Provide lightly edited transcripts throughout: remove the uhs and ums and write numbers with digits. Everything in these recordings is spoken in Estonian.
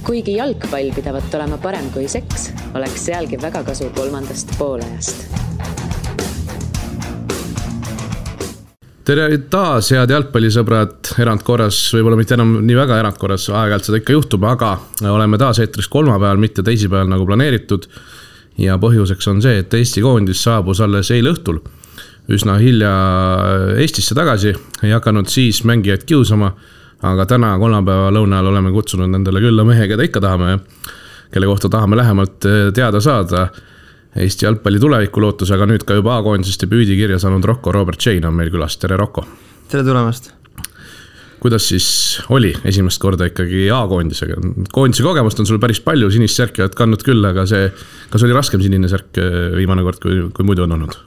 Kuigi jalgpall pidavat olema parem kui seks, oleks sealgi väga kasu 3. poolajast. Tere taas, head jalgpallisõbrad, erandkorras, võib-olla mitte enam nii väga erandkorras, aeg-ajalt seda ikka juhtub, aga oleme taas eetris kolmapäeval, mitte teisipäeval nagu planeeritud. Ja põhjuseks on see, et Eesti koondis saabus alles eile õhtul üsna hilja Eestisse tagasi, ei hakanud siis mängijaid kiusama, aga täna kolmapäeva lõunal oleme kutsunud nendele külla mehe, keda ikka tahame, kelle kohta tahame lähemalt teada saada. Eesti jalgpalli tuleviku lootus, aga nüüd ka juba A-koondisest debüüdi kirja saanud Rocco Robert Chain on meil külas. Tere, Rocco! Tere tulemast! Kuidas siis oli esimest korda ikkagi A-koondisega? Koondise kogemust on sul päris palju, sinist särki oled kandnud küll, aga kas oli raskem sinine särk viimane kord, kui muidu on olnud?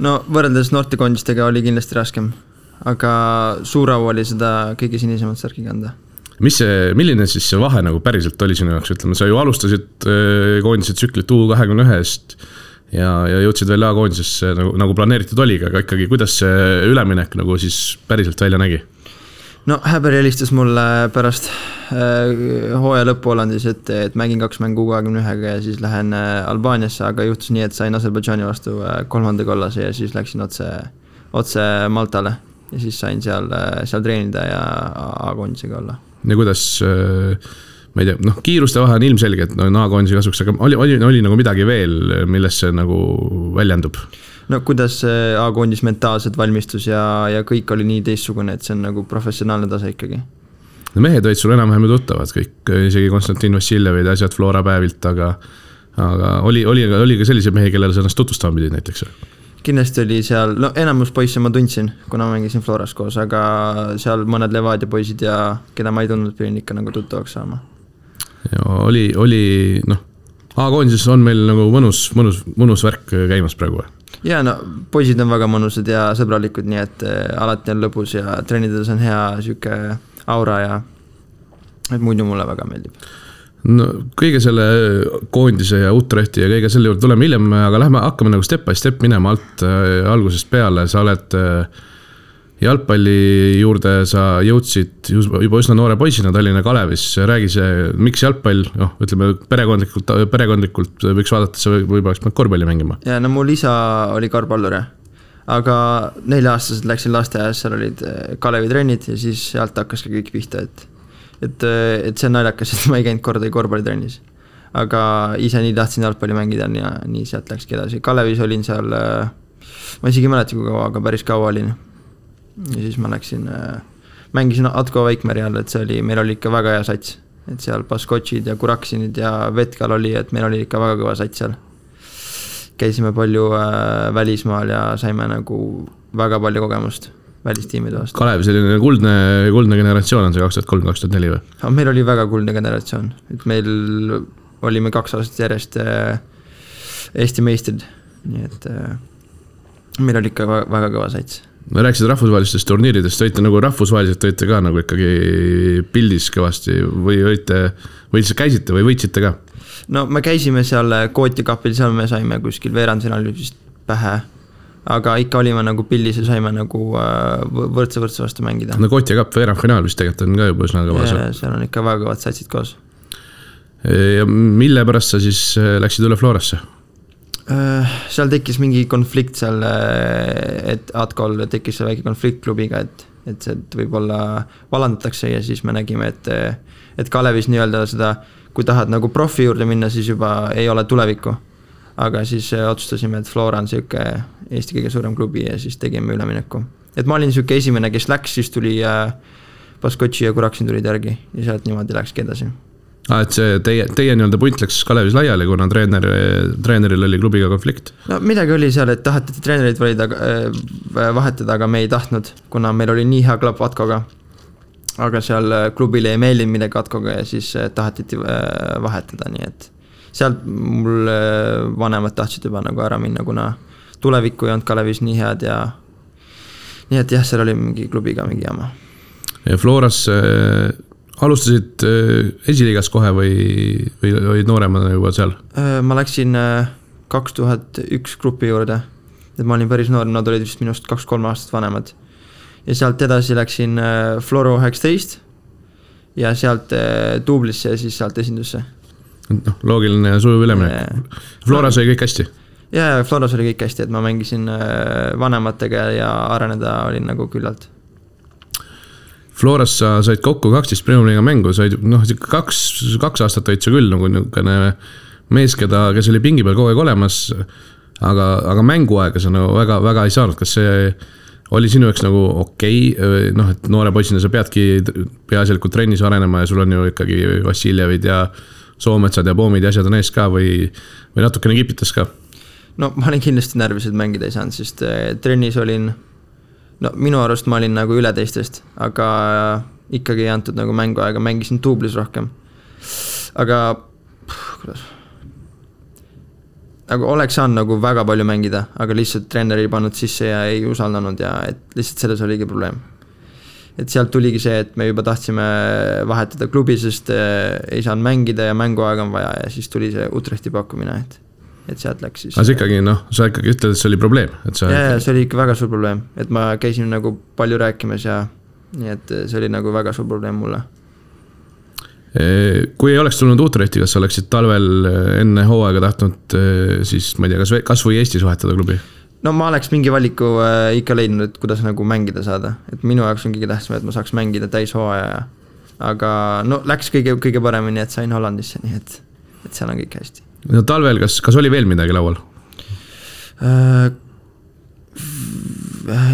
No võrreldes noortekoondistega oli kindlasti raskem, aga suur au oli seda kõige sinisemat särki kanda. Milline siis see vahe nagu päriselt oli sinu jaoks? Ütleme, sa ju alustasid koondise tsüklit U21-st ja jõudsid veel A-koondisesse nagu planeeritud oliga, aga ikkagi kuidas see üleminek nagu siis päriselt välja nägi? No Häber helistas mulle pärast hooaja lõppu Hollandis, et mängin 2 mängu U21-ga ja siis lähen Albaaniasse, aga juhtus nii, et sain Aserbaidžaani vastu 3. kollase ja siis läksin otse Maltale ja siis sain seal treenida ja A-koondisega olla. Ja kuidas, ma ei tea, kiiruste vahe on ilmselge, et A-koondise kasuks, aga oli nagu midagi veel, millest see nagu väljendub? No kuidas A-koondis mentaalselt valmistus ja kõik oli nii teistsugune, et see on nagu professionaalne tase ikkagi. No mehed olid sul enam-vähem tuttavad, kõik, isegi Konstantin Vassiljevid ja asjad Flora päevilt, aga oli ka sellise mehe, kellele sa ennast tutvustama pidid näiteks? Kindlasti oli seal, enamus poisse ma tundsin, kuna ma mängisin Floras koos, aga seal mõned Levadia poisid ja keda ma ei tundnud, pidin ikka nagu tuttavaks saama. Ja oli A-koondises on meil nagu mõnus värk käimas praegu. Ja poisid on väga mõnusad ja sõbralikud, nii et alati on lõbus ja treenides on hea süke aura ja et muidu mulle väga meeldib. No, kõige selle koondise ja Utrechti ja kõige selle juurde tuleme hiljem, aga hakkame nagu step by step minema alt algusest peale. Sa oled jalgpalli juurde, sa jõudsid juba üsna noore poisina Tallinna Kalevis. Räägi see, miks jalgpall, ütleme perekondlikult võiks vaadata, et sa võib-olla oleks korvpalli mängima. Ja mul isa oli korvpallur, aga 4-aastased läksin lasteaias, seal olid Kalevi trennid ja siis sealt hakkas ka kõik pihta, et see on naljakas, et ma ei käinud kordagi korvpallitrennis. Aga ise nii tahtsin jalgpalli mängida ja nii sealt läkski edasi. Kalevis olin seal, ma isegi mäleta kui kaua, aga päris kaua olin. Ja siis ma läksin, mängisin Atko Veikmeri all, et meil oli ikka väga hea sats. Et seal Baskotšid ja Kuraksinid ja Vetkal oli, et meil oli ikka väga kõva sats seal. Käisime palju välismaal ja saime nagu väga palju kogemust välistiimide vastu. Kalev, selline kuldne generatsioon on see 2003-2004 või? Meil oli väga kuldne generatsioon. Et meil olime 2 aastat järjest Eesti meistrid. Nii et meil oli ikka väga kõva sats. Me rääkisid rahvusvahelistest turniiridest, võite nagu rahvusvaheliselt võite ka nagu ikkagi pildis kõvasti või käisite või võitsite ka? No me käisime seal Kooti kapil, seal me saime kuskil veerandfinaalis pähe. Aga ikka olime nagu pildis ja saime nagu võrdse vastu mängida. No Kooti kapp veerandfinaal vist tegelikult on ka juba üsna kõva. Seal on ikka väga kõvad satsid koos. Ja mille pärast sa siis läksid üle Florasse? Seal tekkis mingi konflikt seal, et Atkol tekkis see väike konflikt klubiga, et see võib-olla valandatakse ja siis me nägime, et Kalevis nii-öelda seda, kui tahad nagu profi juurde minna, siis juba ei ole tulevikku. Aga siis otsustasime, et Flora on selline Eesti kõige suurem klubi ja siis tegime ülemineku. Et ma olin selline esimene, kes läks, siis tuli Baskotši ja Kuraksin tulid järgi ja sealt niimoodi läkski edasi. Et see teie nii-öelda punt läks Kalevis laiali, kuna treeneril oli klubiga konflikt? No midagi oli seal, et taheti treenerid vahetada, aga me ei tahtnud, kuna meil oli nii hea klapp Atkoga. Aga seal klubile ei meeldinud midagi Atkoga ja siis tahetiti vahetada, nii et sealt mul vanemad tahtsid juba nagu ära minna, kuna tulevikku ei olnud Kalevis nii head ja nii et jah, seal oli mingi klubiga mingi jama. Ja Floras alustasid esiliigas kohe või olid nooremad juba seal? Ma läksin 2001 grupi juurde, et ma olin päris noor, nad olid vist minust 2-3 aastat vanemad. Ja sealt edasi läksin Floro 19 ja sealt duublisse ja siis sealt esindusse. No, loogiline ja sujuv üleminek. Floras oli kõik hästi? Ja Floras oli kõik hästi, et ma mängisin vanematega ja areneda olin nagu küllalt. Floras sa said kokku 12 Premium-liiga mängu, said kaks aastat olid sa küll nagu niisugune mees, kes oli pingi peal kogu aeg olemas, aga mänguaega sa nagu väga ei saanud. Kas see oli sinu jaoks nagu okei, et noore poisina sa peadki peaasjalikult trennis arenema ja sul on ju ikkagi Vassiljevid ja Soometsad ja Poomid ja asjad on ees ka või natukene kipitas ka? No ma olin kindlasti närvis, et mängida ei saanud, sest trennis olin minu arust ma olin nagu üle teistest, aga ikkagi ei antud nagu mänguaega, mängisin duublis rohkem. Aga kuidas? Nagu oleks saanud nagu väga palju mängida, aga lihtsalt treener ei pannud sisse ja ei usaldanud ja et lihtsalt selles oligi probleem. Et sealt tuligi see, et me juba tahtsime vahetada klubi, sest ei saanud mängida ja mänguaega on vaja ja siis tuli see Utrechti pakkumine, et sealt läks siis. Aga sa ikkagi ütled, et see oli probleem? Ja, see oli ikka väga suur probleem, et ma käisin nagu palju rääkimas ja nii, et see oli nagu väga suur probleem mulle. Kui ei oleks tulnud Utrechti, kas sa oleksid talvel enne hooaega tahtnud siis, ma ei tea, kas või Eestis vahetada klubi? No ma oleks mingi valiku ikka leidnud, et kuidas nagu mängida saada, et minu jaoks on kõige tähtsam, et ma saaks mängida täis hooaja, aga läks kõige paremini, et sain Hollandisse, nii et seal on kõik hästi. No talvel, kas oli veel midagi laual?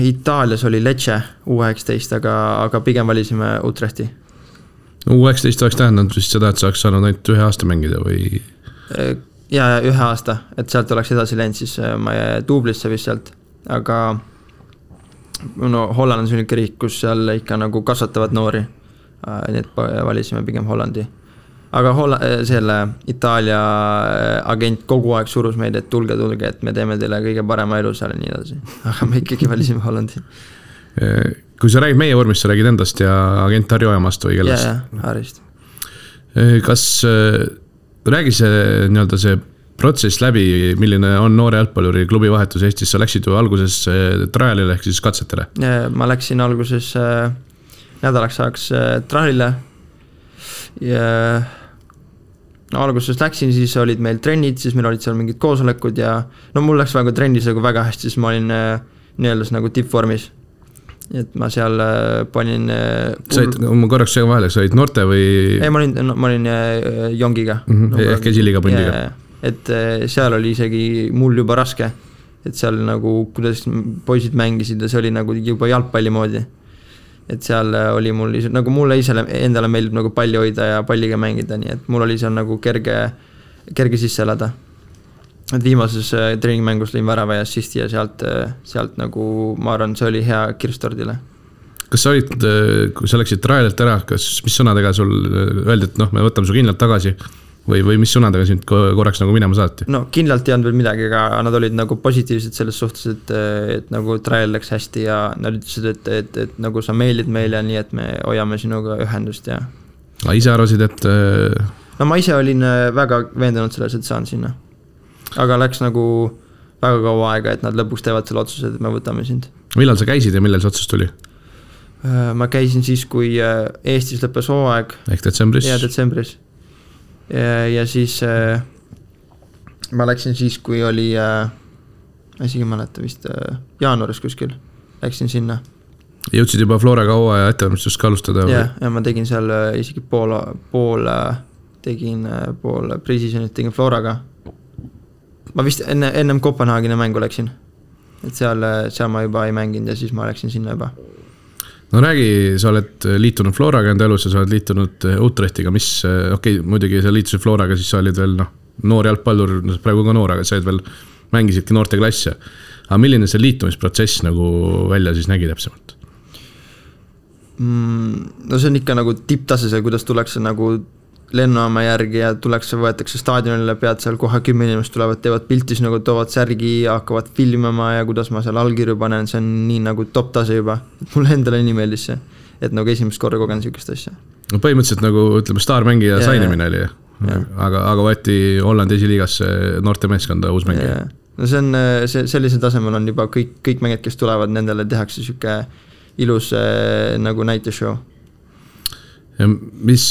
Itaalias oli Lecce U19, aga pigem valisime Utrechti. U19 oleks tähendanud vist seda, et sa oleks saanud ainult 1 aasta mängida või? Ja 1 aasta, et sealt oleks edasi läinud siis ma duublisse vist sealt, aga Holland on selline riik, kus seal ikka nagu kasvatavad noori, nii et valisime pigem Hollandi. Aga selle Itaalia agent kogu aeg surus meid, et tulge, et me teeme teile kõige parema elu seal ja nii edasi. Aga me ikkagi valisime Hollandi. Kui sa räägid meie vormist, sa räägid endast ja agent Harju Ojamast või kellest? Ja, Harist. Kas räägi see protsess läbi, milline on noore jalgpalluri klubi vahetus Eestis? Sa läksid ju alguses trialile ehk siis katsetele? Ma läksin alguses nädalaks ajaks trialile ja alguses läksin, siis olid meil trennid, siis meil olid seal mingid koosolekud ja mul läks väga trennis nagu väga hästi, siis ma olin nii-öelda nagu tippvormis. Et ma seal panin ma korraks seega vahele, sa olid noorte või? Ei, ma olin jongiga. Ehk esiliiga pundiga. Et seal oli isegi mul juba raske, et seal nagu kuidas poisid mängisid ja see oli nagu juba jalgpalli moodi. Et seal oli mul nagu mulle endale meeldib nagu palli hoida ja palliga mängida, nii et mul oli seal nagu kerge sisse elada. Et viimases treeningmängus lõin värava ja assisti ja sealt nagu ma arvan, see oli hea kirstordile. Kas sa olid, kui sa läksid trialilt ära, mis sõnadega sul öeldi, et me võtame su kindlalt tagasi või mis sõnadega sind korraks nagu minema saati? No kindlalt ei olnud veel midagi, aga nad olid nagu positiivsed selles suhtes, et nagu trial läks hästi ja nad ütlesid, et nagu sa meelid meile, nii et me hoiame sinuga ühendust ja... Aga ise arvasid, et... No ma ise olin väga veendunud selles, et saan sinna. Aga läks nagu väga kaua aega, et nad lõpuks teevad selle otsuse, et me võtame sind. Millal sa käisid ja millal see otsus tuli? Ma käisin siis, kui Eestis lõppes hooaeg. Ehk detsembris? Ja detsembris. Ja siis ma läksin siis, kui oli ma isegi mäleta vist jaanuaris kuskil läksin sinna. Jõudsid juba Floraga hooaja ettevalmistust ka alustada? Ja ma tegin seal isegi pool pre-seasonit tegin Floraga. Ma vist ennem Kopenhaageni mängu läksin, et seal ma juba ei mänginud ja siis ma läksin sinna juba. No räägi, sa oled liitunud Floraga enda elus ja sa oled liitunud Utrechtiga, mis, muidugi sa liitusid Floraga, siis sa olid veel noor jalgpallur, praegu ka noor, aga sa olid veel, mängisidki noorte klasse. Aga milline see liitumisprotsess nagu välja siis nägi täpsemalt? No see on ikka nagu tipptasesel, kuidas tullakse nagu lennuama järgi ja võetakse staadionile, pead seal kohe 10 inimest tulevad, teevad piltis nagu toovad särgi ja hakkavad filmima ja kuidas ma seal allkirju panen, see on nii nagu top tase juba, et mulle endale nii meeldis see, et nagu esimest korda kogen sellist asja. No põhimõtteliselt nagu ütleme staarmängija sainimine oli, aga võeti Hollandi esiliigasse noorte meeskonda uus mängija. No see on, sellisel tasemel on juba kõik mängid, kes tulevad, nendele tehakse selline ilus nagu näiteshow. Ja mis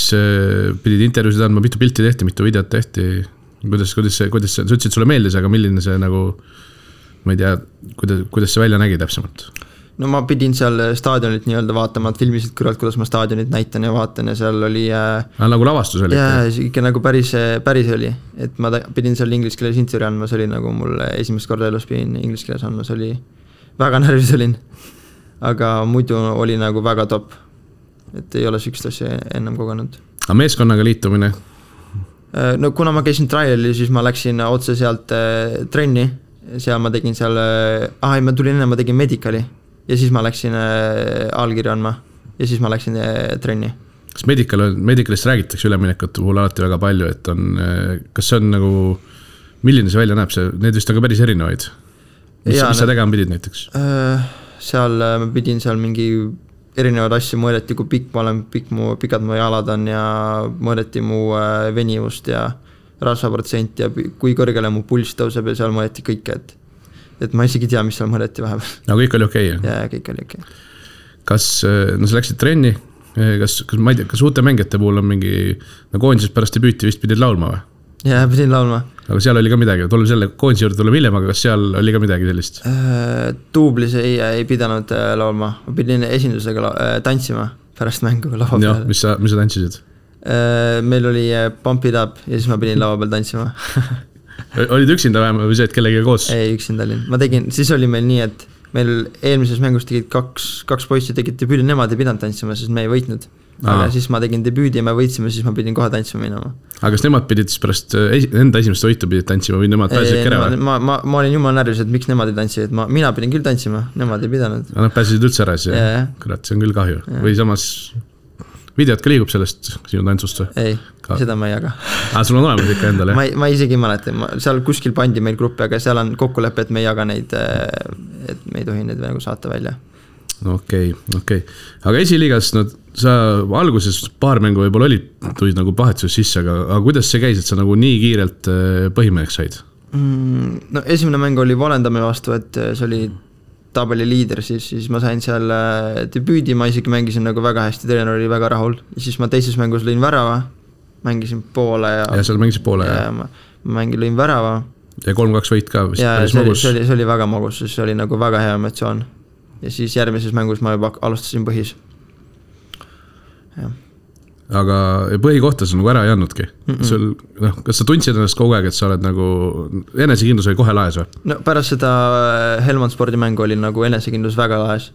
pidid intervjuusid andma, mitu pilti tehti, mitu videot tehti, kuidas sa ütlesid, sulle meeldis, aga milline see nagu, ma ei tea, kuidas see välja nägi täpsemalt? No ma pidin seal staadionit nii-öelda vaatama, et filmisid kõrvalt, kuidas ma staadionit näitan ja vaatan ja seal oli nagu lavastus oli? Jaa, ikka nagu päris oli, et ma pidin seal inglise keeles intervjuu andma, see oli nagu mul esimest korda elus pidin inglise keeles andma, see oli väga närvis olin, aga muidu oli nagu väga top, et ei ole sükst asja ennem kogenud. Aga meeskonnaga liitumine? No kuna ma käisin trialil, siis ma läksin otse sealt trenni, seal ma tegin seal, ma tulin enne, ma tegin medicali ja siis ma läksin allkirja andma ja siis ma läksin trenni. Kas medicalist räägitakse üleminekute puhul alati väga palju, et on, kas see on nagu, milline see välja näeb, need vist on ka päris erinevaid? Mis sa tegema pidid näiteks? Seal ma pidin seal mingi erinevaid asju, mõõdeti, kui pikk ma olen, pikad mu jalad on ja mõõdeti mu venivust ja rasvaprotsent ja kui kõrgele mu pulss tõuseb ja seal mõõdeti kõike, et ma isegi tea, mis seal mõõdeti vahepeal. No kõik oli okei? Jaa, kõik oli okei. Kas, no sa läksid trenni, kas ma ei tea, kas uute mängijate puhul on mingi, no koondisest pärast debüüti vist pidid laulma või? Jaa, pidin laulma. Aga seal oli ka midagi, tuleme selle koondise juurde tuleme hiljem, aga kas seal oli ka midagi sellist? Duublis ei pidanud laulma, ma pidin esindusega tantsima pärast mängu lava peal. Mis sa tantsisid? Meil oli Pump It Up ja siis ma pidin lava peal tantsima. Olid üksinda vähem või see, et kellegagi koos? Ei, üksinda olin. Ma tegin, siis oli meil nii, et meil eelmises mängus tegid kaks poissi tegid debüüdi, nemad ei pidanud tantsima, sest me ei võitnud. Aga siis ma tegin debüüdi ja me võitsime, siis ma pidin kohe tantsima minema. Aga kas nemad pidid siis pärast enda esimest võitu pidid tantsima või nemad pääsesid kere? Ma olin jumala närvis, et miks nemad ei tantsisid, mina pidin küll tantsima, nemad ei pidanud. Nad pääsesid üldse ära siis, kurat, see on küll kahju. Või samas videot ka liigub sellest sinu tantsust või? Ei, seda ma ei jaga. Sul on olemas ikka endale? Ma isegi ei mäleta, seal kuskil pandi meil gruppi, aga seal on kokkulepe, et me ei jaga neid, et me ei tohi neid nagu saata välja. Okei. Aga esiliigas, sa alguses paar mängu võib-olla tulid nagu pahetsus sisse, aga kuidas see käis, et sa nagu nii kiirelt põhimeheks said? No esimene mäng oli Volendami vastu, et see oli tabeli liider, siis ma sain seal debüüdi, ma isegi mängisin nagu väga hästi, treener oli väga rahul. Ja siis ma teises mängus lõin värava, mängisin poole ja seal mängisid poole ja ma lõin värava. Ja 3-2 võit ka vist päris magus. See oli väga magus, see oli nagu väga hea emotsioon. Ja siis järgmises mängus ma juba alustasin põhis. Ja. Aga põhikohta sa nagu ära ei andnudki? Kas sa tundsid ennast kogu aeg, et sa oled nagu enesekindlus oli kohe laes või? No pärast seda Helmond spordimängu oli nagu enesekindlus väga laes.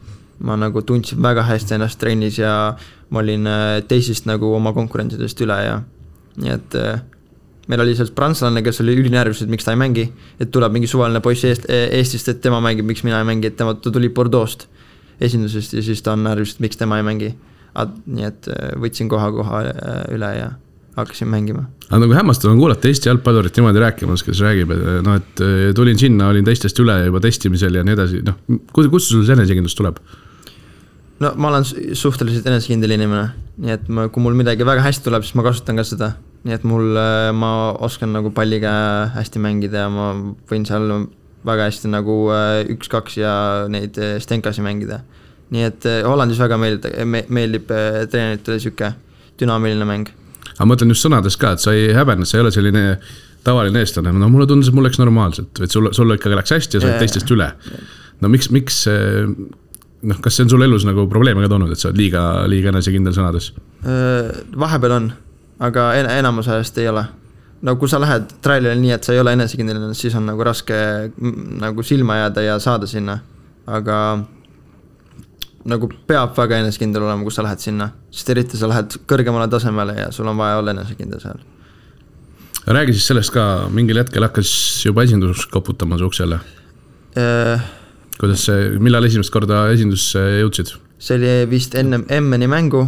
Ma nagu tundsin väga hästi ennast trennis ja ma olin teisest nagu oma konkurentidest üle ja nii et meil oli seal prantslane, kes oli ülinärvis, et miks ta ei mängi, et tuleb mingi suvaline poiss Eestist, et tema mängib, miks mina ei mängi, et ta tuli Bordeaux'st esindusest ja siis ta on närvis, et miks tema ei mängi. Nii et võtsin koha üle ja hakkasin mängima. Aga nagu hämmastav on kuulata Eesti jalgpallurit niimoodi rääkimas, kes räägib, et tulin sinna, olin teistest üle juba testimisel ja nii edasi. Kus sul see enesekindlus tuleb? No ma olen suhteliselt enesekindel inimene, nii et kui mul midagi väga hästi tuleb, siis ma kasutan ka seda. Nii et ma oskan nagu palliga hästi mängida ja ma võin seal väga hästi nagu 1-2 ja neid stenkasi mängida. Nii et Hollandis väga meeldib treeneritele siuke dünaamiline mäng. Aga ma mõtlen just sõnades ka, et sa ei häbenne, sa ei ole selline tavaline eestlane. No mulle tundus, et mul läks normaalselt, et sul ikkagi läks hästi ja sa oled teistest üle. No miks kas see on sul elus nagu probleeme ka toonud, et sa oled liiga enesekindel sõnades? Vahepeal on, aga enamus ajast ei ole. No kui sa lähed trailile nii, et sa ei ole enesekindel, siis on nagu raske nagu silma jääda ja saada sinna. Aga nagu peab väga enesekindel olema, kui sa lähed sinna, sest eriti sa lähed kõrgemale tasemele ja sul on vaja olla enesekindel seal. Räägi siis sellest ka, mingil hetkel hakkas juba esindus koputama su uksele. Kuidas see, millal esimest korda esindusse jõudsid? See oli vist enne Emmeni mängu.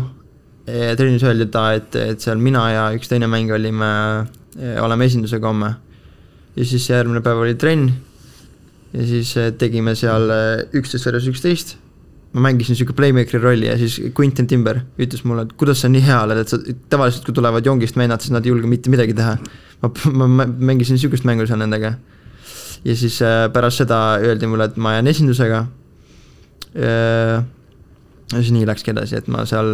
Trennis öeldi et seal mina ja üks teine mäng oleme esindusega homme. Ja siis järgmine päev oli trenn ja siis tegime seal 11-11. Ma mängisin siuke playmakeri rolli ja siis Quentin Timber ütles mulle, et kuidas sa nii hea oled, et sa tavaliselt kui tulevad jongist vennad, siis nad ei julge mitte midagi teha. Ma mängisin siukest mängu seal nendega. Ja siis pärast seda öeldi mulle, et ma jään esindusega. Ja siis nii läkski edasi, et ma seal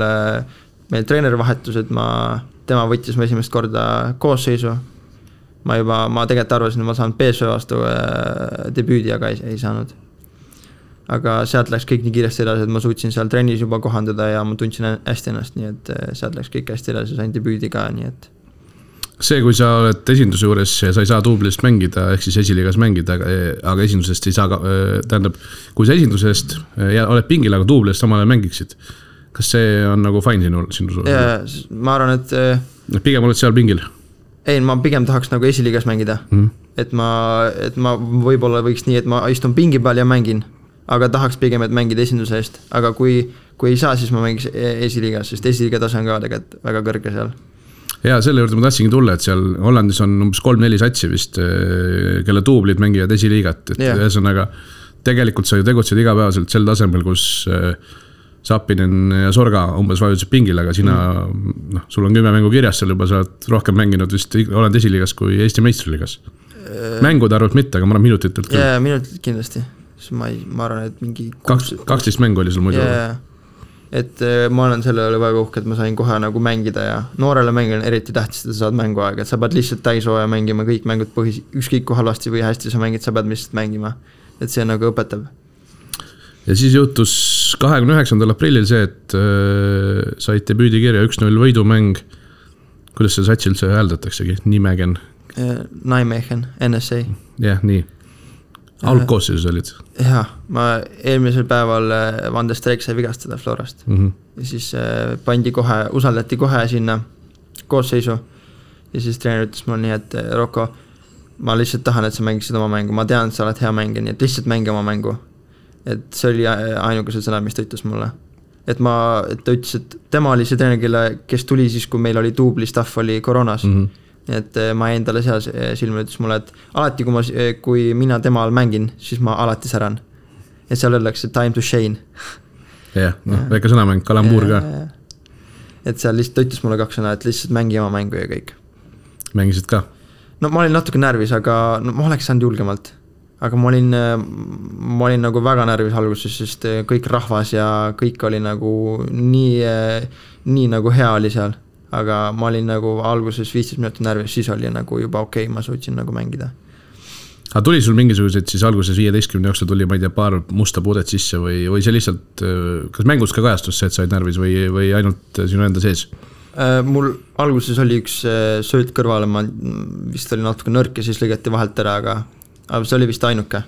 meil treenerivahetused, tema võttis mu esimest korda koosseisu. Ma tegelikult arvasin, et ma saan PSV vastu debüüdi, aga ei saanud. Aga sealt läks kõik nii kiiresti edasi, et ma suutsin seal trennis juba kohandada ja ma tundsin hästi ennast, nii et sealt läks kõik hästi edasi, sain debüüdi ka, nii et see, kui sa oled esinduse juures ja sa ei saa duublist mängida, ehk siis esiliigas mängida, aga esindusest ei saa, tähendab, kui sa esindusest ja oled pingil, aga duublist samal ajal mängiksid, kas see on nagu fine sinu suur? Ma arvan, et pigem oled seal pingil? Ei, ma pigem tahaks nagu esiliigas mängida, et ma võib-olla võiks nii, et ma istun pingi peal ja mängin, aga tahaks pigem, et mängida esinduse eest, aga kui ei saa, siis ma mängiks esiliigas, sest esiliiga tase on ka tegelikult väga kõrge seal. Ja selle juurde ma tahtsingi tulla, et seal Hollandis on umbes 3-4 satsi vist, kelle duublid mängivad esiliigat, et ühesõnaga tegelikult sa ju tegutsed igapäevaselt sel tasemel, kus Sapinen ja Sorga umbes vajutasid pingil, aga sina, sul on 10 mängu kirjas seal juba, sa oled rohkem mänginud vist Hollandi esiliigas kui Eesti meistriliigas. Mängude arvult mitte, aga ma arvan minutitelt küll. Jaa, minutitelt kindlasti. Ma arvan, et mingi 12 mängu oli sul muidu. Et ma olen selle oli väga uhke, et ma sain kohe nagu mängida ja noorele mängile eriti tähtis, et sa saad mänguaega, et sa pead lihtsalt täishooja mängima, kõik mängud ükskõik kui halvasti või hästi sa mängid, sa pead lihtsalt mängima, et see nagu õpetab. Ja siis juhtus 29. aprillil see, et said debüüdikirja 1-0 võidumäng, kuidas see satsil see hääldatakse, Nimegen? Nijmegen, NSA. Jah, nii. Algkoosseisus olid? Jah, ma eelmisel päeval Van der Streek sai vigastada Florast ja siis usaldati kohe sinna koosseisu ja siis treener ütles mul nii, et Rocco, ma lihtsalt tahan, et sa mängiksid oma mängu, ma tean, et sa oled hea mängija, nii et lihtsalt mängi oma mängu, et see oli ainukesed sõnad, mis ta ütles mulle, et ta ütles, et tema oli see treener, kes tuli siis, kui meil oli duubli staff oli koroonas et ma jäin talle seal silma, ütles mulle, et alati kui mina tema all mängin, siis ma alati säran. Et seal öeldakse time to shine. Jah, väike sõnamäng, kalambuur ka. Et seal lihtsalt ütles mulle 2 sõna, et lihtsalt mängi oma mängu ja kõik. Mängisid ka? No ma olin natuke närvis, aga ma oleks saanud julgemalt. Aga ma olin nagu väga närvis alguses, sest kõik rahvas ja kõik oli nagu nii nagu hea oli seal. Aga ma olin nagu alguses 15 minutit närvis, siis oli nagu juba okei, ma suutsin nagu mängida. Aga tuli sul mingisugused siis alguses 15 jooksul tuli, ma ei tea, paar musta puudet sisse või see lihtsalt, kas mängus ka kajastus see, et said närvis või ainult sinu enda sees? Mul alguses oli üks sööt kõrvale, ma vist oli natuke nõrk ja siis lõigati vahelt ära, aga see oli vist ainuke.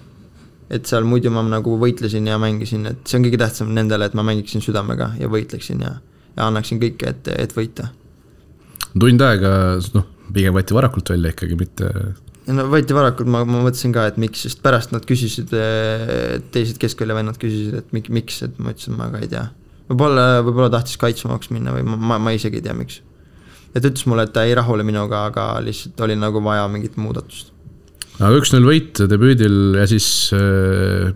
Et seal muidu ma nagu võitlesin ja mängisin, et see on kõige tähtsam nendele, et ma mängiksin südamega ja võitleksin ja annaksin kõike, et võita. Tund aega, pigem võeti varakult välja ikkagi, mitte... No võeti varakult, ma mõtlesin ka, et miks, sest pärast nad küsisid, teised keskvälja vennad küsisid, et miks, et ma ütlesin, ma ka ei tea. Võib-olla tahtis kaitsmaks minna või ma isegi ei tea, miks. Et ütles mulle, et ta ei rahule minuga, aga lihtsalt oli nagu vaja mingit muudatust. Aga 1-0 võit debüüdil ja siis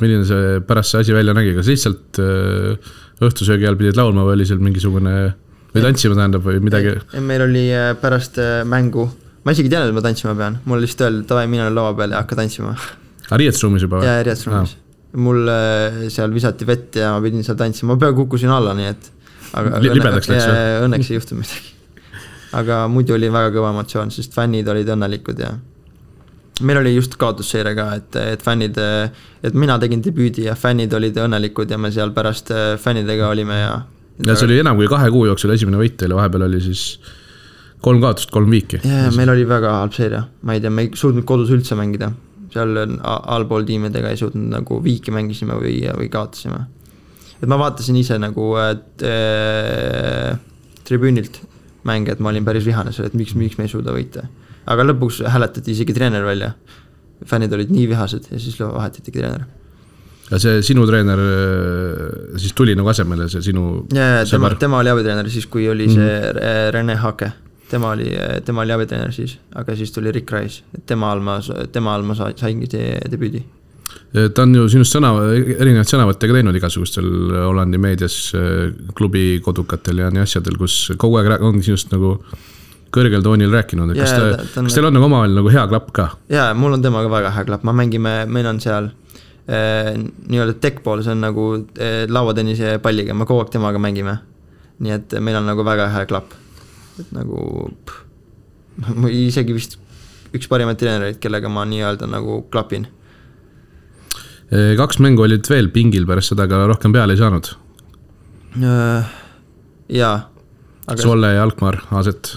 milline see pärast see asi välja nägi, kas lihtsalt õhtusöögi ajal pidid laulma või oli seal mingisugune... või tantsima tähendab või midagi? Meil oli pärast mängu, ma isegi tean, et ma tantsima pean, mul lihtsalt öeldi, et davai, mina laua peal ja hakka tantsima. Riietusruumis juba? Jaa, riietusruumis. Mul seal visati vett ja ma pidin seal tantsima, ma peaaegu kukkusin alla, nii et libedaks läks või? Õnneks ei juhtu midagi. Aga muidu oli väga kõva emotsioon, sest fännid olid õnnelikud ja meil oli just kaotusseire ka, et fännid, et mina tegin debüüdi ja fännid olid õnnelikud ja me seal pärast fännidega olime ja see oli enam kui 2 kuu jooksul esimene võit teile, vahepeal oli siis 3 kaotust, 3 viiki. Ja meil oli väga halb seeria, ma ei tea, me ei suutnud kodus üldse mängida, seal allpool tiimidega ei suutnud nagu viiki mängisime või kaotasime. Et ma vaatasin ise nagu tribüünilt mänge, et ma olin päris vihane seal, et miks me ei suuda võita. Aga lõpuks hääletati isegi treener välja, fännid olid nii vihased ja siis vahetati treener. Ja see sinu treener siis tuli nagu asemele, see sinu sõber? Tema oli abitreener siis, kui oli see Rene Hake. Tema oli abitreener siis, aga siis tuli Rick Rice. Tema all ma saingi debüüdi. Ta on ju sinust erinevad sõnavõttega teinud igasugustel Hollandi meedias, klubi kodukatel ja nii asjadel, kus kogu aeg on sinust nagu kõrgel toonil rääkinud. Kas teil on nagu omavahel nagu hea klapp ka? Jaa, mul on temaga väga hea klapp. Meil on seal nii-öelda deckball, see on nagu lauatennise palliga, me kogu aeg temaga mängime. nii et meil on nagu väga hea klapp, et nagu ma isegi vist üks parimaid treenereid, kellega ma nii-öelda nagu klapin. 2 mängu olid veel pingil pärast seda, aga rohkem peale ei saanud. Jaa. Solle ja Alkmaar, Aaset.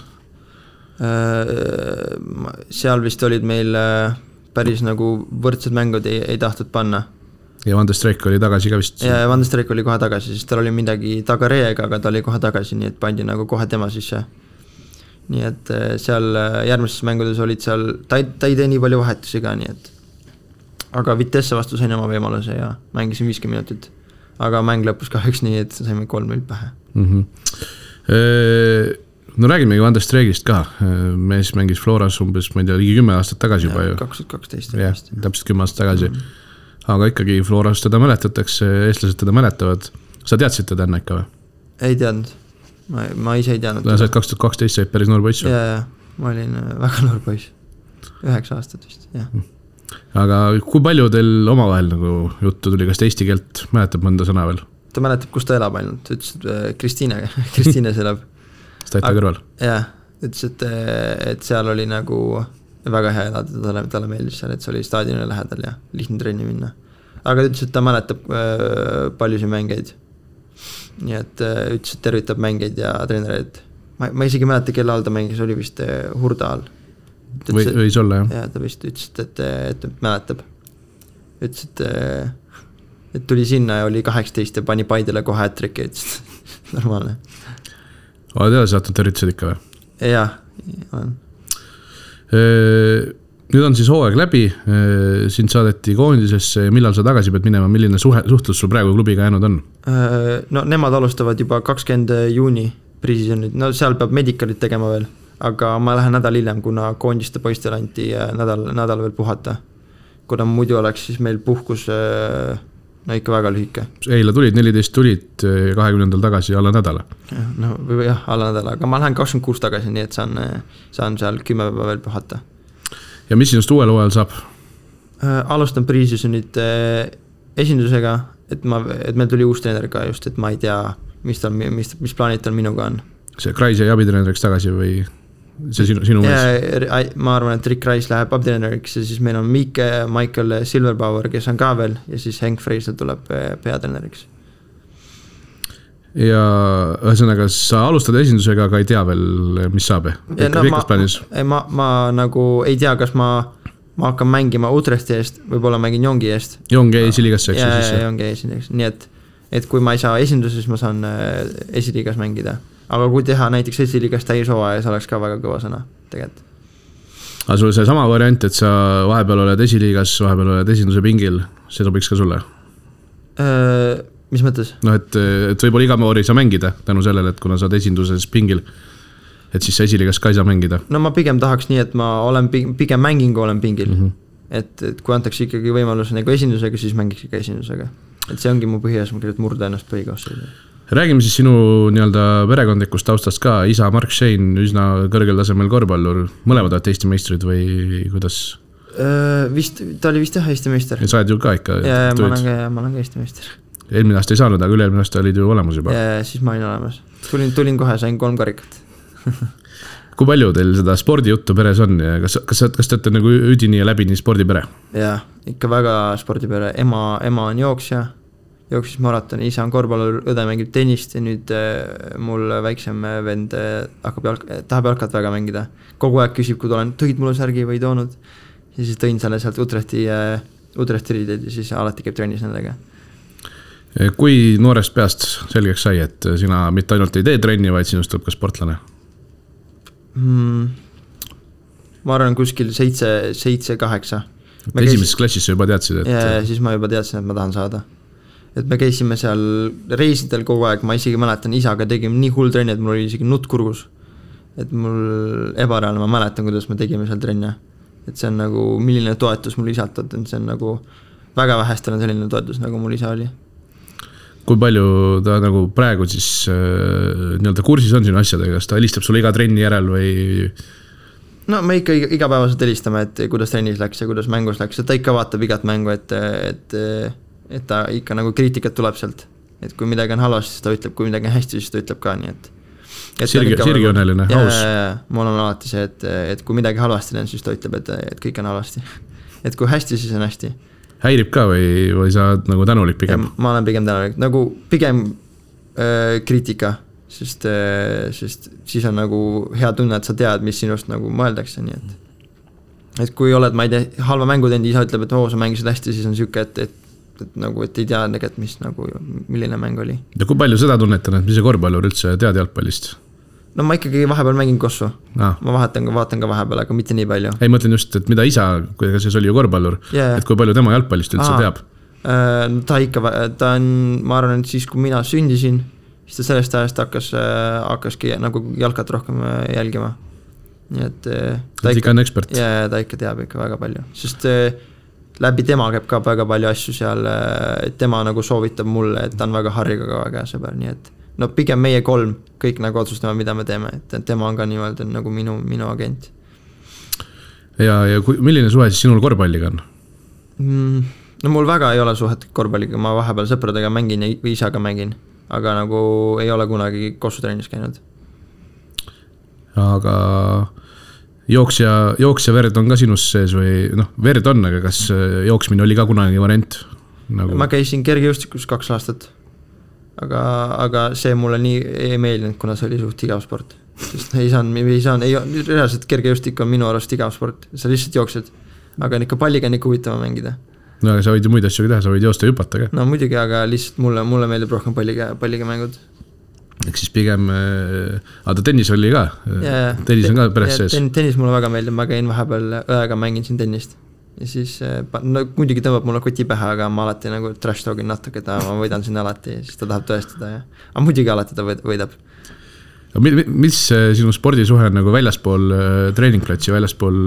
Seal vist olid meil päris nagu võrdsed mängud ei tahtnud panna. Ja Van de Streek oli tagasi ka vist. Ja Van de Streek oli kohe tagasi, siis tal oli midagi tagareega, aga ta oli kohe tagasi, nii et pandi nagu kohe tema sisse. Nii et seal järgmises mängudes olid seal, ta ei tee nii palju vahetusi ka, nii et aga Vitesse vastu sain oma võimaluse ja mängisin 50 minutit. Aga mäng lõpus kahjuks nii, et saime 3-0 pähe. No räägimegi Van de Streegist ka. Mees mängis Floras umbes, ma ei tea, ligi 10 aastat tagasi juba. 2012. Jah, täpselt 10 aastat tagasi. Aga ikkagi Floras teda mäletatakse, eestlased teda mäletavad. Sa teadsid teda enne ikka või? Ei teadnud. Ma ise ei teadnud. Sa 2012 said päris noor poiss. Ja, ma olin väga noor poiss. 9 aastat vist, jah. Aga kui palju teil omavahel nagu juttu tuli, kas ta eesti keelt mäletab mõnda sõna veel? Ta mäletab, kus ta elab ainult, ütles, et Kristiines elab. Staita kõrval? Jah, ütles, et seal oli nagu väga hea elada, talle meeldis seal, et see oli staadionile lähedal ja lihtne trenni minna. Aga ütles, et ta mäletab paljusid mängeid. Nii et ütles, et tervitab mängeid ja treenereid. Ma isegi mäleta, kelle all ta mängis, oli vist Hurda all. Võis olla, jah? Ja ta vist ütles, et mäletab. Ütles, et tuli sinna ja oli 18 ja pani Paidele kohe hätriki, ütles, normaalne. Oled edasi saatnud tervitused ikka või? Jah, olen. Nüüd on siis hooaeg läbi, sind saadeti koondisesse, millal sa tagasi pead minema, milline suhtlus sul praegu klubiga jäänud on? No nemad alustavad juba 20. juuni pre-seasonid, no seal peab medikalit tegema veel, aga ma lähen nädal hiljem, kuna koondiste poistel anti nädal veel puhata. Kuna muidu oleks siis meil puhkus no ikka väga lühike. Eile tulid, 14 tulid 20. tagasi alla nädala. No jah, alla nädala, aga ma lähen 26 tagasi, nii et saan seal 10 päeva veel puhata. Ja mis sinust uuel hooajal saab? Alustan pre-seasonit esindusega, et meil tuli uus treener ka just, et ma ei tea, mis plaanid tal minuga on. See Kreis jäi abitreeneriks tagasi või see sinu mees? Ma arvan, et Rick Kreis läheb abitreeneriks ja siis meil on Michael Silverpower, kes on ka veel ja siis Henk Freisel tuleb peatreeneriks. Ja ühesõnaga, sa alustad esindusega, aga ei tea veel, mis saab? Ma nagu ei tea, kas ma hakkan mängima Utrechti eest, võib-olla mängin Jongi eest. Jongi esiliigasse, eks? Ja Jongi esiliigasse, nii et kui ma ei saa esinduses, ma saan esiliigas mängida. Aga kui teha näiteks esiliigas täishooaja, see oleks ka väga kõva sõna tegelikult. Aga sul see sama variant, et sa vahepeal oled esiliigas, vahepeal oled esinduse pingil, see sobiks ka sulle? Mis mõttes? No, et võib-olla iga moori sa mängida tänu sellele, et kuna sa oled esinduses pingil, et siis sa esiliigas ka ei saa mängida. No ma pigem tahaks nii, et ma olen pigem mängin, kui olen pingil. Et kui antakse ikkagi võimalus nagu esindusega, siis mängiks ikka esindusega. Et see ongi mu põhieesmärk, et murda ennast põhikoosseisu. Räägime siis sinu nii-öelda perekondlikust taustast ka. Isa Mark Shane, üsna kõrgel tasemel korvpallur. Mõlemad oled Eesti meistrid või kuidas? Ta oli vist jah Eesti meister. Ja sa oled ju ka ikka? Ja ma olen ka Eesti meister. Eelmine aasta ei saanud, aga üle-eelmine aasta olid ju olemas juba. Ja siis ma olin olemas. Tulin kohe, sain 3 karikat. Kui palju teil seda spordijuttu peres on ja kas te olete nagu üdini ja läbini spordipere? Jah, ikka väga spordipere. Ema on jooksja, jooksis maratoni, isa on korvpallur, õde mängib tennist ja nüüd mul väiksem vend tahab jalkat väga mängida. Kogu aeg küsib, kui olen, tõid mulle särgi või toonud ja siis tõin selle sealt Utrechti riided ja siis alati käib trennis nendega. Kui noorest peast selgeks sai, et sina mitte ainult ei tee trenni, vaid sinust tuleb ka sportlane? Ma arvan kuskil 7-8. Esimeses klassis sa juba teadsid, et... Ja siis ma juba teadsin, et ma tahan saada. Et me käisime seal reisidel kogu aeg, ma isegi mäletan, isaga tegime nii hull trenni, et mul oli isegi nutt kurgus. Et mul ebareaalne, ma mäletan, kuidas me tegime seal trenne. Et see on nagu, milline toetus mul isalt on, see on nagu väga vähestel on selline toetus, nagu mul isa oli. Kui palju ta nagu praegu siis nii-öelda kursis on sinu asjadega, kas ta helistab sulle iga trenni järel või? No me ikka igapäevaselt helistame, et kuidas trennis läks ja kuidas mängus läks, et ta ikka vaatab igat mängu, et ta ikka nagu kriitikat tuleb sealt. et kui midagi on halvasti, siis ta ütleb, kui midagi on hästi, siis ta ütleb ka, nii et Sirgioneline, aus. Mul on alati see, et kui midagi halvasti on, siis ta ütleb, et kõik on halvasti. Et kui hästi, siis on hästi. Häirib ka või sa nagu tänulik pigem? Ma olen pigem tänulik, nagu pigem kriitika, sest siis on nagu hea tunne, et sa tead, mis sinust nagu mõeldakse, nii et kui oled, ma ei tea, halva mängu teinud, isa ütleb, et sa mängisid hästi, siis on siuke, et nagu, et ei tea tegelikult, mis nagu, milline mäng oli. Ja kui palju seda tunnetan, et mis see korvpallur üldse tead jalgpallist? No ma ikkagi vahepeal mängin kossu. Ma vaatan ka vahepeal, aga mitte nii palju. Ei, mõtlen just, et mida isa, kuidas see oli ju korvpallur, et kui palju tema jalgpallist üldse teab? Ta on, ma arvan, et siis kui mina sündisin, siis ta sellest ajast hakkaski nagu jalkat rohkem jälgima. Nii et ta ikka on ekspert. Ja ta ikka teab ikka väga palju, sest läbi tema käib ka väga palju asju seal, et tema nagu soovitab mulle, et ta on väga Harriga ka väga sõber, nii et no pigem meie 3 kõik nagu otsustame, mida me teeme, et tema on ka niimoodi nagu minu agent. Ja milline suhe siis sinul korvpalliga on? No mul väga ei ole suhet korvpalliga, ma vahepeal sõpradega mängin ja isaga mängin, aga nagu ei ole kunagi kossutrennis käinud. Aga jooksja verd on ka sinus sees või verd on, aga kas jooksmine oli ka kunagi variant? Nagu... Ma käisin kergejõustikus 2 aastat. Aga see mulle nii ei meeldinud, kuna see oli suht igav sport. Sest reaalselt kergejõustik on minu arust igav sport. Sa lihtsalt jooksed. Aga ikka palliga on ikka huvitava mängida. No aga sa võid ju muid asju teha, sa võid joosta ja hüpata ka. No muidugi, aga lihtsalt mulle meeldib rohkem palliga mängud. Ehk siis pigem... Aga tennis oli ka? Tennis on ka pärast sees? Tennis mulle väga meeldib, ma käin vahepeal õega mängin siin tennist. Ja siis muidugi tõmbab mulle koti pähe, aga ma alati nagu trash talgin natuke, ma võidan sinna alati, siis ta tahab tõestada. Aga muidugi alati ta võidab. Mis sinu spordisuhe on nagu väljaspool treeningplatsi, väljaspool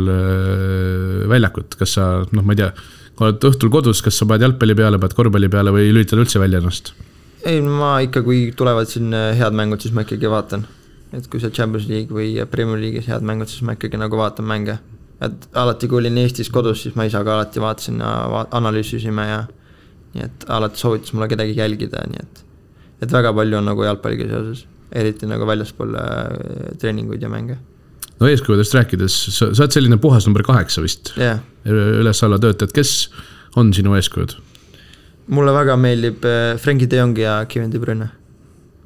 väljakut? Kas sa, ma ei tea, kui oled õhtul kodus, kas sa paned jalgpalli peale, paned korvpalli peale või lülitad üldse välja ennast? Ei, ma ikka, kui tulevad siin head mängud, siis ma ikkagi vaatan. Et kui see Champions League või Premier League'is head mängud, siis ma ikkagi nagu vaatan mänge. Et alati kui olin Eestis kodus, siis ma isaga alati vaatasin ja analüüsisime ja nii et alati soovitas mulle kedagi jälgida, nii et väga palju on nagu jalgpalliga seoses, eriti nagu väljaspool treeninguid ja mänge. No eeskujudest rääkides, sa oled selline puhas number 8 vist, üles alla töötajad, kes on sinu eeskujud? Mulle väga meeldib Frenkie de Jong ja Kevin De Bruyne,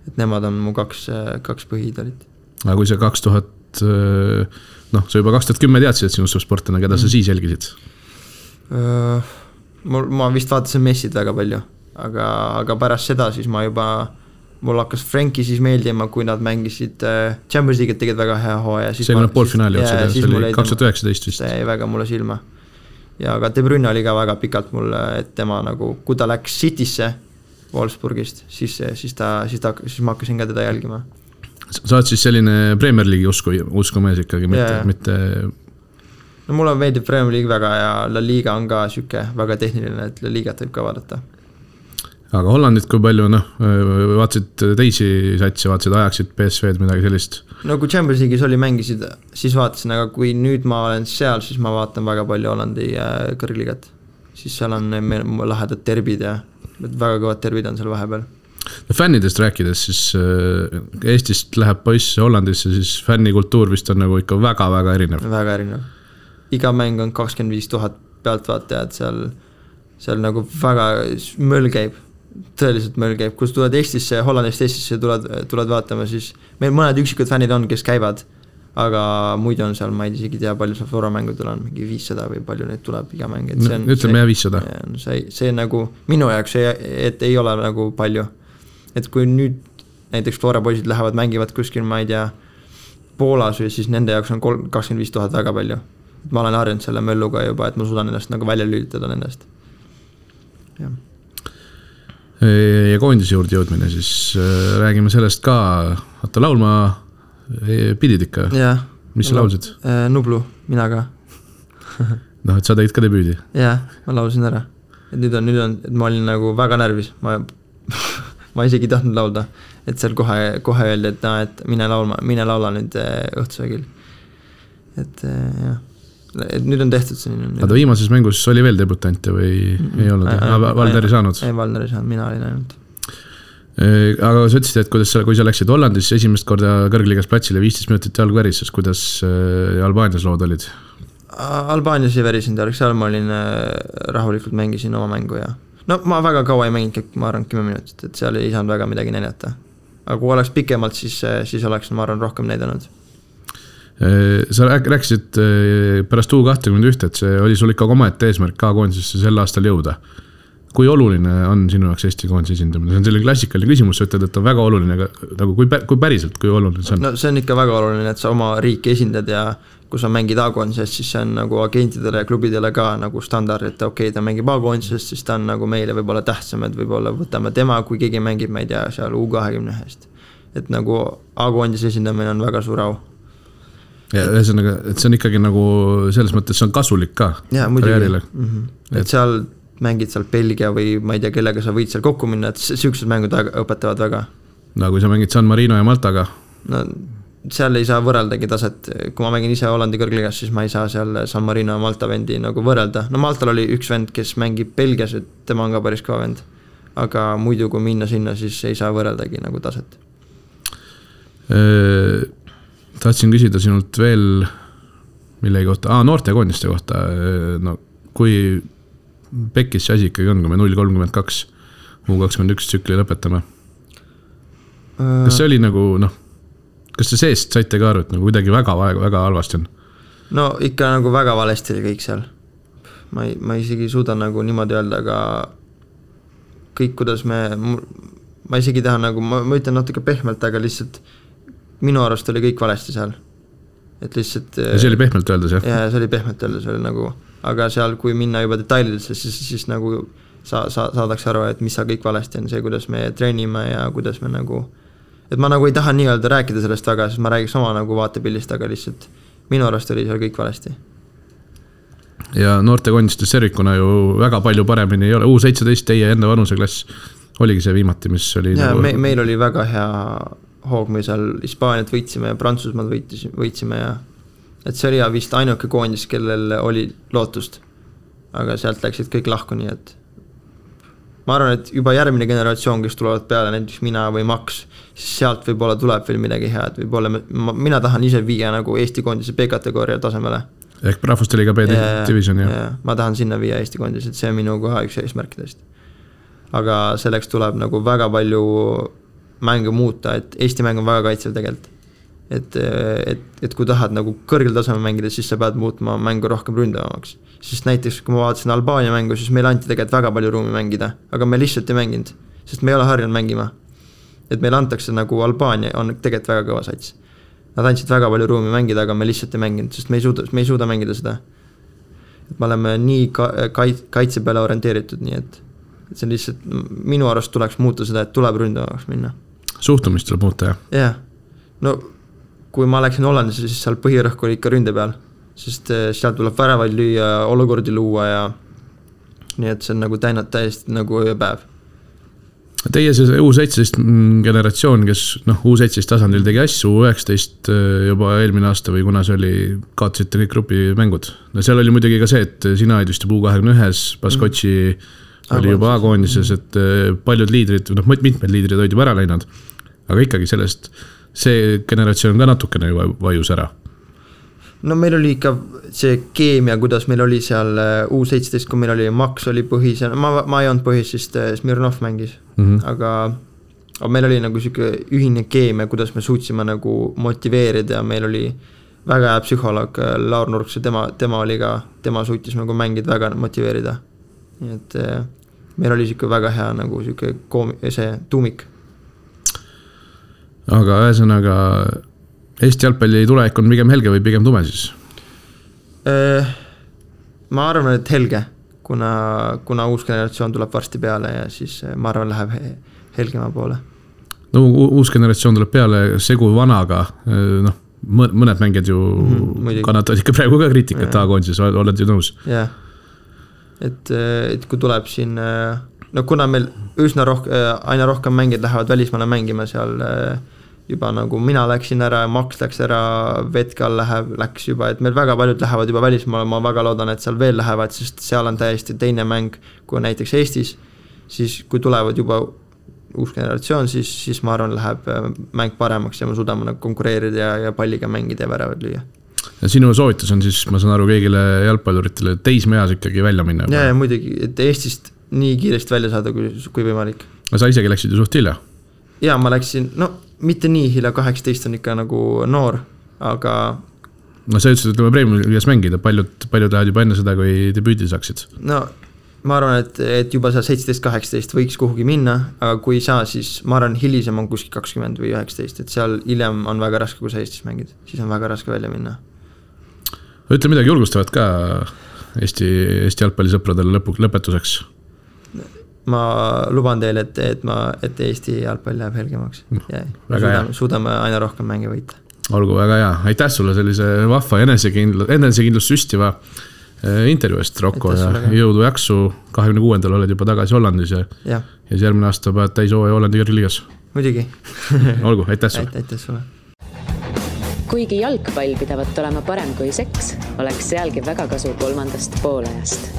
et nemad on mu kaks põhiidolit. Aga kui see 2000... sa juba 2010 teadsid, et sinust sportlane, keda sa siis jälgisid? Ma vist vaatasin Messid väga palju, aga pärast seda siis mul hakkas Frenkie siis meeldima, kui nad mängisid Champions League'it tegid väga hea hooaja. See oli poolfinaali otsad, see oli 2019 vist. See jäi väga mulle silma. Ja aga De Bruyne oli ka väga pikalt mulle, et tema nagu, kui ta läks Citysse Wolfsburgist, siis ma hakkasin ka teda jälgima. Sa oled siis selline Premier League'i uskumees ikkagi, mitte... No mulle meeldib Premier League väga ja La Liga on ka süke väga tehniline, et La Ligat võib ka vaadata. Aga Hollandit kui palju, vaatsid teisi satsi, vaatsid Ajaxid, PSV'd, midagi sellist? No kui Champions League'is oli mängisid, siis vaatasin, aga kui nüüd ma olen seal, siis ma vaatan väga palju Hollandi kõrgligat. Siis seal on lahedad terbid ja väga kõvad terbid on seal vahepeal. Fännidest rääkides, siis Eestist läheb poiss Hollandisse, siis fännikultuur vist on nagu ikka väga-väga erinev. Väga erinev. Iga mäng on 25 000 pealtvaatajad, seal nagu väga möll käib, tõeliselt möll käib. Kui tuled Eestisse, Hollandist Eestisse tuled vaatama, siis meil mõned üksikud fännid on, kes käivad, aga muidu on seal, ma ei isegi tea, palju seal Flora-mängudel on, mingi 500 või palju neid tuleb iga mäng. Ütleme 500. See nagu minu jaoks, et ei ole nagu palju. Et kui nüüd näiteks Flora poisid lähevad, mängivad kuskil, ma ei tea, Poolas või siis nende jaoks on 25 000 väga palju. Ma olen harjunud selle mölluga juba, et ma suudan ennast nagu välja lülitada nendest. Ja koondise juurde jõudmine, siis räägime sellest ka, laulma pidid ikka. Mis sa laulsid? Nublu, mina ka. Et sa tegid ka debüüdi? Jah, ma laulsin ära. Et nüüd on, et ma olin nagu väga närvis, ma isegi tahtnud laulda, et seal kohe öeldi, et mine laula nüüd õhtusöögil. Et nüüd on tehtud selline. Aga viimases mängus oli veel debutante või ei olnud? Valder ei saanud? Ei, Valder ei saanud, mina olin ainult. Aga sa ütlesid, et kui sa läksid Hollandis esimest korda kõrgliigas platsile 15 minutit jalg värises, kuidas Albaanias lood olid? Albaanias ei värisin jalg, seal ma olin rahulikult mängisin oma mängu ja no ma väga kaua ei mänginud, ma arvan 10 minutit, et seal ei saanud väga midagi näidata. Aga kui oleks pikemalt, siis oleks ma arvan rohkem näidanud. Sa rääkisid pärast U21, et see oli sul ikka omaette eesmärk K-koondisesse sel aastal jõuda. Kui oluline on sinu jaoks Eesti koondise esindamine? See on selline klassikaline küsimus, sa ütled, et on väga oluline, aga nagu kui päriselt, kui oluline see on? No see on ikka väga oluline, et sa oma riiki esindad ja kui sa mängid A-koondisest, siis see on nagu agentidele ja klubidele ka nagu standard, et okei, ta mängib A-koondisest, siis ta on nagu meile võib-olla tähtsam, et võib-olla võtame tema, kui keegi mängib, ma ei tea, seal U21-st. Et nagu A-koondise esindamine on väga suur au. Ja ühesõnaga, et see on ikkagi nagu selles mõttes, see on kasulik ka karjäärile. Et seal mängid seal Belgia või ma ei tea, kellega sa võid seal kokku minna, et sihukesed mängud õpetavad väga. No kui sa mängid San Marino ja Maltaga? No seal ei saa võrreldagi taset, kui ma mängin ise Hollandi kõrgliigas, siis ma ei saa seal San Marino ja Malta vendi nagu võrrelda. No Maltal oli üks vend, kes mängib Belgias, et tema on ka päris kõva vend. Aga muidu kui minna sinna, siis ei saa võrreldagi nagu taset. Tahtsin küsida sinult veel millegi kohta, noortekoondiste kohta, no kui Pekis see asi ikkagi on, kui me 0-32 U21 tsükli lõpetame. Kas see oli nagu, kas see seest saite ka aru, et nagu kuidagi väga halvasti on? No ikka nagu väga valesti oli kõik seal. Ma isegi suuda nagu niimoodi öelda, aga kõik, kuidas ma isegi tahan nagu, ma ütlen natuke pehmelt, aga lihtsalt minu arust oli kõik valesti seal. Et lihtsalt... Ja see oli pehmelt öeldes, jah? Ja see oli pehmelt öeldes, oli nagu... Aga seal, kui minna juba detailidesse, siis nagu saadaks aru, et mis sa kõik valesti on see, kuidas me treenime ja kuidas me nagu... Et ma nagu ei taha nii öelda rääkida sellest väga, sest ma räägiks oma nagu vaatepillist, aga lihtsalt minu arust oli seal kõik valesti. Ja noortekoondistes servikuna ju väga palju paremini ei ole. U17 teie enda vanuseklass oligi see viimati, mis oli... Ja nagu... meil oli väga hea hoog, me seal Hispaaniat võitsime ja Prantsusmaad võitsime ja... Et see oli vist ainuke koondis, kellel oli lootust. Aga sealt läksid kõik lahku, nii et ma arvan, et juba järgmine generatsioon, kes tulevad peale, näiteks mina või Max, siis sealt võib-olla tuleb veel midagi head. Mina tahan ise viia nagu Eesti koondise B-kategooria tasemele. Ehk rahvusteliga B-division, jah? Ja, ma tahan sinna viia Eesti koondis, et see on minu koha üks eesmärkidest. Aga selleks tuleb nagu väga palju mänge muuta, et Eesti mäng on väga kaitsev tegelikult. Et kui tahad nagu kõrgel tasemel mängida, siis sa pead muutma mängu rohkem ründavamaks. Sest näiteks, kui ma vaatasin Albaania mängu, siis meil anti tegelikult väga palju ruumi mängida, aga me lihtsalt ei mänginud, sest me ei ole harjunud mängima. Et meil antakse nagu Albaania on tegelikult väga kõva sats. Nad andsid väga palju ruumi mängida, aga me lihtsalt ei mänginud, sest me ei suuda mängida seda. Et me oleme nii kaitse peale orienteeritud, nii et see on lihtsalt, minu arust tuleks muuta seda, et tuleb ründavamaks minna. Suhtumist tuleb muuta, jah? Jah, no kui ma läksin Hollandisse, siis seal põhirõhk oli ikka ründe peal, sest seal tuleb väravaid lüüa, olukordi luua ja nii et see on nagu täiesti nagu ööpäev. Teie see U17 generatsioon, kes U17 tasandil tegi asju, U19 juba eelmine aasta või kuna see oli, kaotasite kõik grupimängud. No seal oli muidugi ka see, et sina olid vist U21, Baskotši oli juba A-koondises, et paljud liidrid, mitmed liidrid olid juba ära läinud, aga ikkagi sellest see generatsioon ka natukene juba vajus ära. No meil oli ikka see keemia, kuidas meil oli seal U17, kui meil oli Max oli põhis, ma ei olnud põhis, sest Smirnov mängis, aga meil oli nagu siuke ühine keemia, kuidas me suutsime nagu motiveerida ja meil oli väga hea psühholoog Laur Nurks ja tema oli ka, tema suutis nagu mängid väga motiveerida. Nii et meil oli siuke väga hea nagu siuke see tuumik. Aga ühesõnaga Eesti jalgpalli tulevik on pigem helge või pigem tume siis? Ma arvan, et helge, kuna uus generatsioon tuleb varsti peale ja siis ma arvan, läheb helgema poole. No uus generatsioon tuleb peale segu vanaga, mõned mängijad ju kannatavad ikka praegu ka kriitikat A-koondises, oled ju nõus? Jah, et kui tuleb siin, kuna meil aina rohkem mängijad lähevad välismaale mängima seal juba nagu mina läksin ära, Max läks ära, Vetkal läks juba, et meil väga paljud lähevad juba välismaale, ma väga loodan, et seal veel lähevad, sest seal on täiesti teine mäng kui näiteks Eestis, siis kui tulevad juba uus generatsioon, siis ma arvan, läheb mäng paremaks ja me suudame konkureerida ja palliga mängida ja väravad lüüa. Ja sinu soovitus on siis, ma saan aru, kõigile jalgpalluritele teismeeas ikkagi välja minna? Ja muidugi, et Eestist nii kiiresti välja saada, kui võimalik. Aga sa isegi läksid ju suht hilja? Ja ma läksin, mitte nii hilja, 18 on ikka nagu noor, aga... No sa ütlesid, et Premium-liigas mängida, paljud lähevad juba enne seda, kui debüüdi saaksid? No ma arvan, et juba seal 17-18 võiks kuhugi minna, aga kui saa, siis ma arvan, hilisem on kuskil 20 või 19, et seal hiljem on väga raske, kui sa Eestis mängid, siis on väga raske välja minna. Ütle midagi julgustavat ka Eesti jalgpallisõpradele lõpetuseks. Ma luban teile, et Eesti jalgpall läheb helgemaks ja suudame aina rohkem mänge võita. Olgu väga hea, aitäh sulle sellise vahva enesekindlust süstiva intervjuu eest, Rocco, ja jõudu jaksu, 26. oled juba tagasi Hollandis ja järgmine aasta pead täis hooaja Hollandi kõrgliigas. Muidugi. Olgu, aitäh sulle. Aitäh sulle. Kuigi jalgpall pidavat olema parem kui seks, oleks sealgi väga kasu 3. poolajast.